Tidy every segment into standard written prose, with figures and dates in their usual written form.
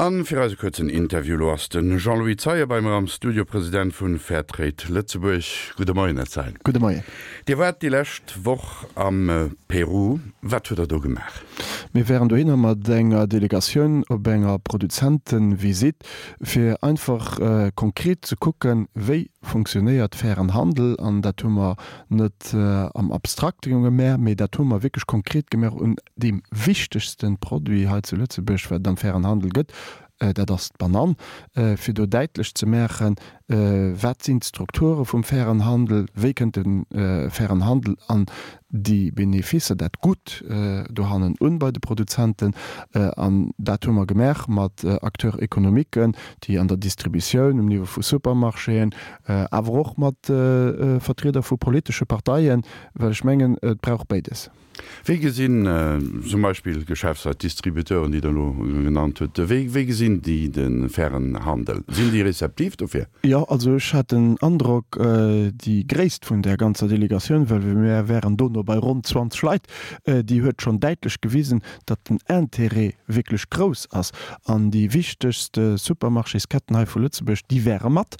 An fir eise kuerzen Interview elo ass de Jean-Louis Zeien bei mer am Studio, President vun Fairtrade Lëtzebuerg. Gudde Moien, Här Zeien. Gudde Moien. Dir waart déi lescht Woch am Peru. Wat hutt Der do gemaach? Mir waren dohinner mat enger Delegatioun op enger Produzentenvisitt, fir einfach konkret ze kucken, wéi funktionéiert fairen Handel. An dat hu mer net am Abstrakte gemaach, mee dat hu mer wierklech konkret gemaach un deem wichtegste Produit hei zu Lëtzebuerg, wat et am fairen Handel gëtt, dat ass d'Banann, fir do däitlech ze maachen, wat sinn d'Strukture vum fairen Handel, wéi kënnt de fairen Handel an déi Beneficer, dat Gutt dohannen un bei de Produzenten. An dat hu mer gemaach mat Acteurs économiquen, déi an der Distributioun, um Niveau vu Supermarchéen, awer och mat Vertrieder vu politesche Parteien, well ech mengen, et brauch béides. Wéi gesinn zum Beispill Geschäftsleit, Distributeuren, déi Der elo genannt hutt, wéi wéi gesinn déi de fairen Handel? Sinn déi rezeptiv dofir? Jo, also ech hat den Androck, déi Gréisst vun där ganzer Delegatioun, well mir wären dono bei ronn 20 Leit, déi huet schonn däitlech gewisen, datt den Intérêt wierklech grouss ass. An déi wichtegst Supermarchésketten hei vu Lëtzebuerg, déi wäre mat.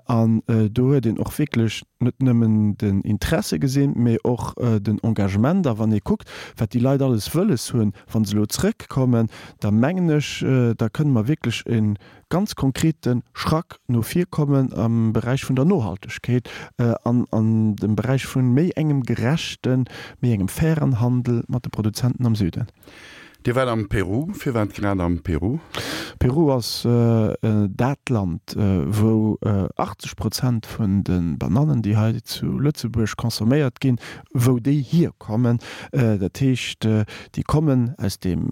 An do huet een och wierklech net nëmmen den Interesse gesinn, mee och den Engagement. A wann ee kuckt, wat déi Leit alles wëlles hunn, wa se elo zrëckkommen, da mengen ech, da kënne mer wierklech e ganz konkrete Schrack no vir kommen am Beräich vun der Nohaltegkeet an an dem Beräich vu méi engem gerechten, méi engem fairen Handel mat de Produzenten am Süden. Dir waart am Peru. Firwat grad am Peru? Peru ass dat Land, wou 80 Prozent vun de Banannen, déi hei zu Lëtzebuerg consomméiert ginn, wou déi hierkommen. Dat heescht, déi kommen aus deem,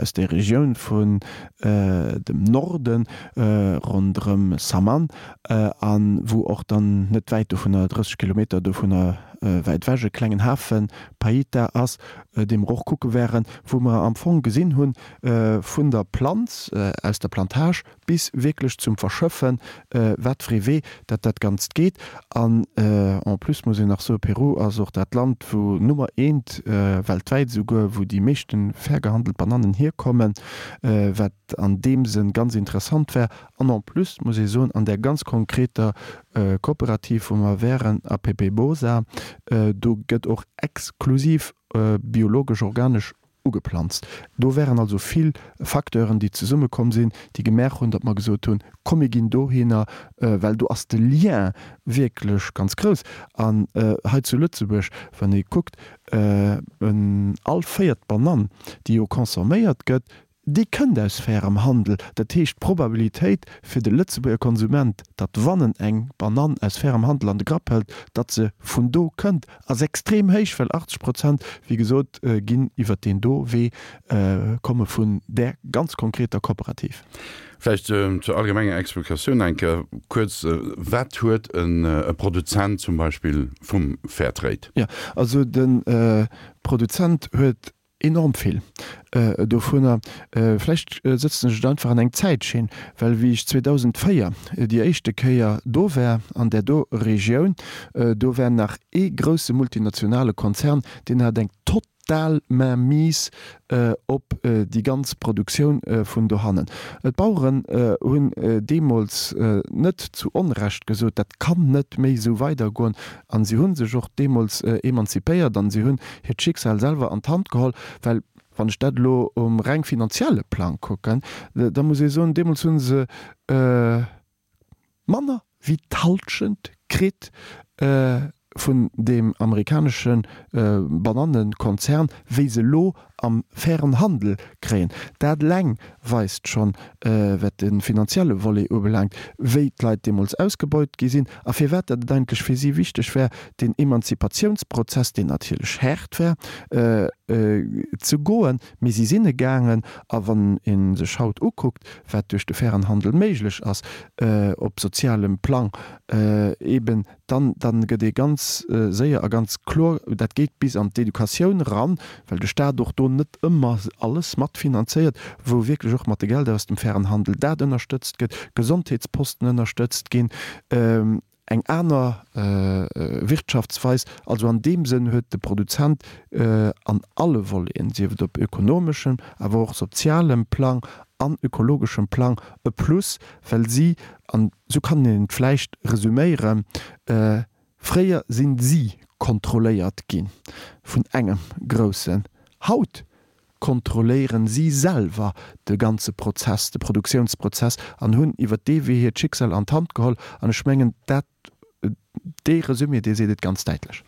aus där Regioun vun dem Norden, ronderëm Saman, a wou och dann net wäit dovunner, 30 Kilometer dovunner wäit ewech, e klengen Hafen, Paita, ass. dee mer och kucke wären, wou mer am Fong gesinn hunn, vun der Planz, aus der Plantage bis wierklech zum Verschëffen, wat fir ee Wee dat dat Ganzt geet. An en plus muss een nach soen, Peru ass och dat Land, wou Nummer eent weltwäit esouguer, wou déi meeschte fair gehandelt Banannen hierkommen, wat an deem Sënn ganz interessant war. An en plus muss ee soen, an där ganz konkreter Kooperativ, wou mer wären, APP-Bosa, do gëtt och exklusiv biologesch, organesch ugeplanzt. Do wären also vill Facteuren, déi zesummekomm sinn, déi gemaach hunn, datt mer gesot hunn, komm mir ginn dohinner, well do ass de Lien wierklech ganz grouss. An hei zu Lëtzebuerg, wann ee kuckt, all véiert Banann, déi jo consomméiert gëtt, Déi kënnt aus fairem Handel. Dat heescht, d'Probabilitéit fir de Lëtzebuerger Konsument, datt wann en eng Banann aus fairem Handel an de Grapp hëlt, datt se vun do kënnt, ass extrem héich, well 80 Prozent, wéi gesot, ginn iwwert deen do Wee, komme vun där ganz konkreter Kooperativ. Vläicht zur allgemenger Explikatioun eng Kéier kuerz, Wat huet e Produzent zum Beispill vum Fairtrade? Jo, also de Produzent huet Enorm vill dovunner. Vläicht sëtzen ech et einfach an eng Zäitschinn, well wéi ech 2004 déi éischte Kéier do war an där do Regioun, do war nach ee grousse multinationale Konzern, deen hat eng total Mainmise op déi ganz Produktioun vun dohannen. D'Baueren hunn deemools net zu Onrecht gesot, dat kann net méi esou weidergoen. An si hu sech och deemools emanzipéiert an si hunn hiert Schicksal selwer an d'Hand geholl, well wann ech dat elo um reng finanzielle Plang kucken, da muss ee soen, deemools hu se manner wéi d'Halschent kritt vun deem amerikanesche Banannenkonzern, wéi se elo am fairen Handel kréien. Dat eleng weist schonn, wat de finanzielle Volet ubelaangt, wéi d'Leit deemools ausgebeut gi sinn a firwat dat et eigentlech fir si wichteg war, deen Emanzipatiounsprozess, deen natierlech haart war, ze goen. Mee si sinn e gaangen. A wann ee sech haut ukuckt, wat duerch de fairen Handel méiglech ass op sozialem Plang, eeben dann, dann gëtt ee ganz séier a ganz kloer, dat geet bis an d'Educatioun eran, well de Stat och do net ëmmer alles matfinanzéiert, wou wierklech och mat de Gelder aus dem fairen Handel dat ënnerstëtzt gëtt, Gesondheetsposten ënnerstëtzt ginn. Eng aner Wirtschaftsweis. Also an deem Sënn huet de Produzent an alle Voleten, sief et op ökonomeschem, awer och sozialem Plang an ökologeschem Plang e Plus, well si, an esou kann een et vläicht resüméieren, fréier sinn si kontrolléiert gi vun engem Groussen, haut kontrolléieren si selwer de ganze Prozess, de Produktiounsprozess an hunn iwwer dee Wee hiert Schicksal an d'Hand geholl. An ech mengen, dat, dee Resumé, dee seet et ganz däitlech.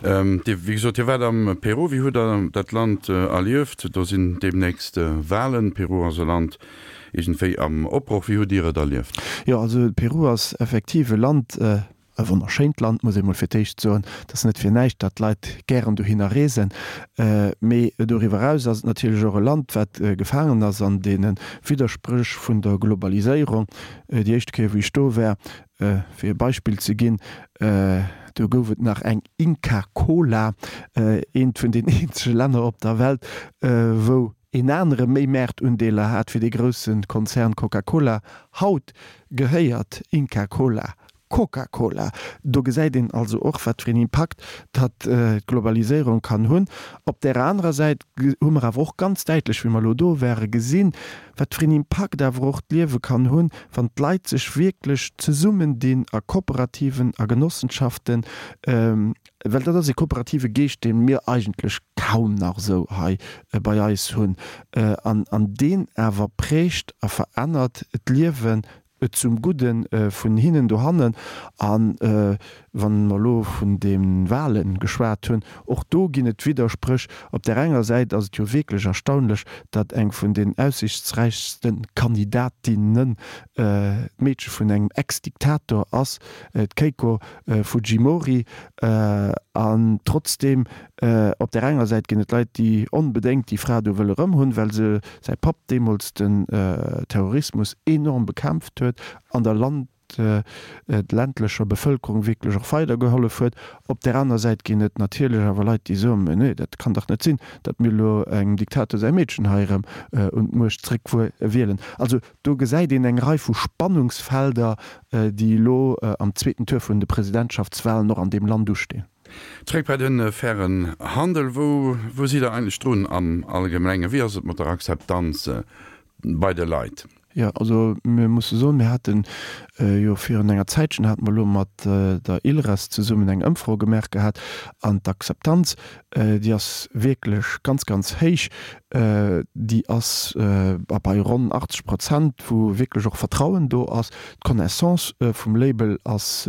Dir, wéi gesot, Dir waart am Peru. Wéi hutt Der dat Land erlieft? Do sinn deemnächst Wahlen. Peru ass e Land iergendwéi am Opbroch. Wéi hutt Dir et erlieft? Jo, also Peru ass effektiv e Land, E wonnerschéint Land, muss ee mol fir d'éischt soen. Et ass net fir näischt, datt d'Leit gären dohinner reesen. Mee doriwwer eraus ass et natierlech och e Land, wat gefaangen ass an deene Widderspréch vun der Globaliséierung. Déi éischte Kéier, wou ech do war, fir e Beispill ze ginn, do gouf et nach eng Inca Kola, eent vun den eenzege Länner op der Welt, wou een anere méi Maartundeeler hat wéi dee grousse Konzern Coca-Cola. Haut gehéiert Inca Kola Coca-Cola. Do gesäit een also och, wat fir een Impakt datt d'Globaliséierung kann hunn. Op där anerer Säit hu mer awer och ganz däitlech, wéi mer elo do ware, gesinn, wat fir een Impakt awer och d'Liewe kann hunn, wann d'Leit sech wierklech zesummendinn a Kooperativen, a Genossenschaften, Well dat ass e kooperative Geescht, dee mir eigentlech kaum nach esou hei bei eis hunn, an deen awer prägt a verännert d'Liewen zum Gudde vun hinnen dohannen. A wa mer elo vun de Wahle geschwat hunn, och do ginn et Widderspréch. Op där enger Säit ass et jo wierklech erstaunlech, datt eng vun den aussichtsräichste Kandidatinnen d'Meedche vun engem Ex-Diktator ass, d'Keiko Fujimori. An trotzdeem, op där enger Säit ginn et Leit, déi onbedéngt déi Fra do wëlle rëm hunn, well se säi Papp deemools den Terrorismus enorm bekämpft huet an der Land, ländlecher Bevëlkerung wierklech och weidergehollef huet. Op där aner Säit ginn et natierlech awer Leit, déi soen, Mä nee, dat kann dach net sinn, datt mir elo engem Diktator säi Meedchen hei erëm un d'Muecht zréckwielen. Also Do gesäit een eng Rei vu Spannungsfelder, déi elo am zweeten Tour vun de Presidentschaftswalen och an deem Land ustinn. Zréck bei de fairen Handel, Wou wou sidd Der eigentlech drun am Allgemengen? Wéi ass et mat der Akzeptanz bei de Leit? Jo, also mir musse soen, mir hate jo virun enger Zäitchen hate mer elo mat der ILReS zesummen eng Ëmfro gemaach gehat an d'Akzeptanz, déi ass wierklech ganz, ganz héich. Déi ass bei ronn 80 Prozent, wou wierklech och Vertrauen do ass. D'Connaissance vum Label ass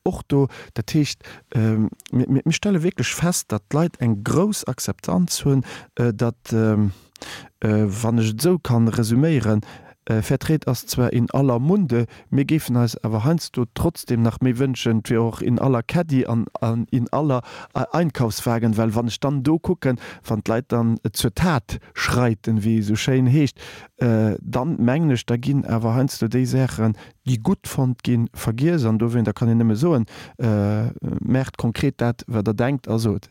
och do. Dat heescht, mir stelle wierklech fest, datt d'Leit eng grouss Akzeptanz hunn, datt, wann ech et esou kann resüméieren, Fairtrade ass zwar in aller Munde, mir géifen eis awer heiansdo trotzdem nach méi wënschen, et wier och in aller Caddy an in aller Einkaufswagen, well wann ech dann do kucken, wann d'Leit dann zur Tat schreiten, wéi et esou schéin heescht, dann mengen ech, da ginn awer heiansdo déi Saachen, déi gutt fonnt ginn, vergiess. An dowéinter kann een nëmme soen, Maacht konkret dat, wat Der denkt a sot.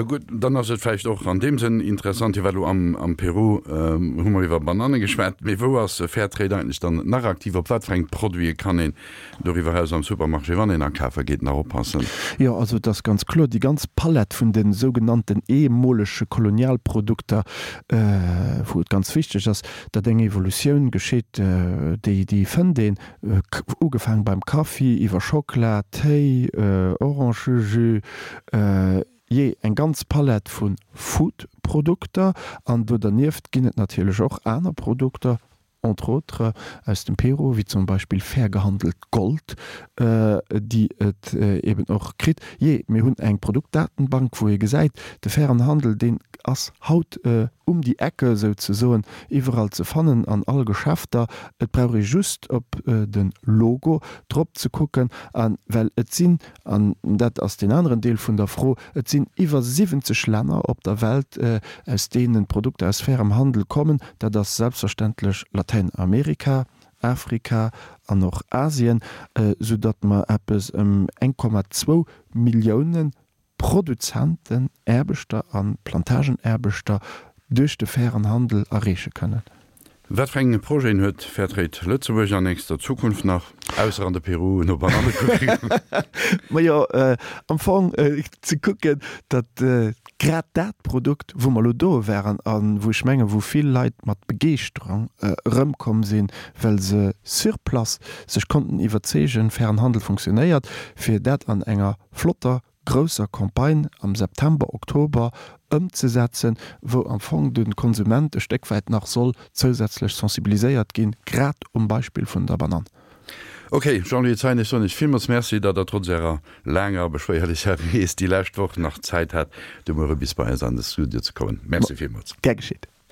Gutt, dann ass et vläicht och an deem Sënn interessant, hie war elo am Peru, hu mer iwwer Bananne geschwat, mee wou ass Fairtrade eigentlech dann nach aktiv? Op wat fir eng Produite kann een doriwwer eraus am Supermarché, wann een akafe geet, nach oppassen? Jo, also et ass ganz kloer, déi ganz Palett vun de sougenannten ehemolege Kolonialprodukter, wou et ganz wichteg ass, datt eng Evolutioun geschitt, déi déi fënnt een, ugefaang beim Kaffi, iwwer Schockela, Téi, Orangëjus, jee eng ganz Palett vu Food-Produkter. An do dernieft ginn et natierlech och aner Produkter, entre autres aus dem Peru, wéi zum Beispill fair gehandelt Gold, déi et eben och kritt. Jee, mir hunn eng Produktdatenbank, wou ee gesäit, de fairen Handel, deen ass haut um die Ecke souzesoen, iwwerall ze fannen an all Geschäfter. Et brauch ee just op de Logo drop ze kucken, a well et sinn, an dat ass deen aneren Deel vun der Fro, et sinn iwwer 70 Länner op der Welt, aus deenen d'Produkter aus fairem Handel kommen. Dat ass selbstverständlech Latäinamerika, Afrika an och Asien, soudatt mer eppes ëm 1,2 Milliounen Produzenten, Aarbechter a Plantagenaarbechter duerch de fairen Handel erreeche kënnen. Wat fir eng Projeten huet Fairtrade Lëtzebuerg an nächster Zukunft nach, ausser an de Peru no Bananne kucken? Majo, am Fong ze kucken, datt grad dat Produkt, wou mer elo do waren a wou ech mengen, wou vill Leit mat Begeeschterung erëmkomm sinn, well se sur place sech konnten iwwerzeegen, fairen Handel funktionéiert, fir dat an enger flotter grousser Campagne am September, Oktober ëmzesetzen, wou am Fong de Konsument e Stéck wäit nach soll zousätzlech sensibiliséiert ginn, grad um Beispill vun der Banann. Ok, Jean-Louis Zeien, ech soen Iech villmools Merci, datt Der trotz Ärer laanger a beschwéierlecher Rees déi lescht Woch nach Zäit hat, de Muere bis bei eis an de Studio ze kommen. Merci villmools. Gär geschitt.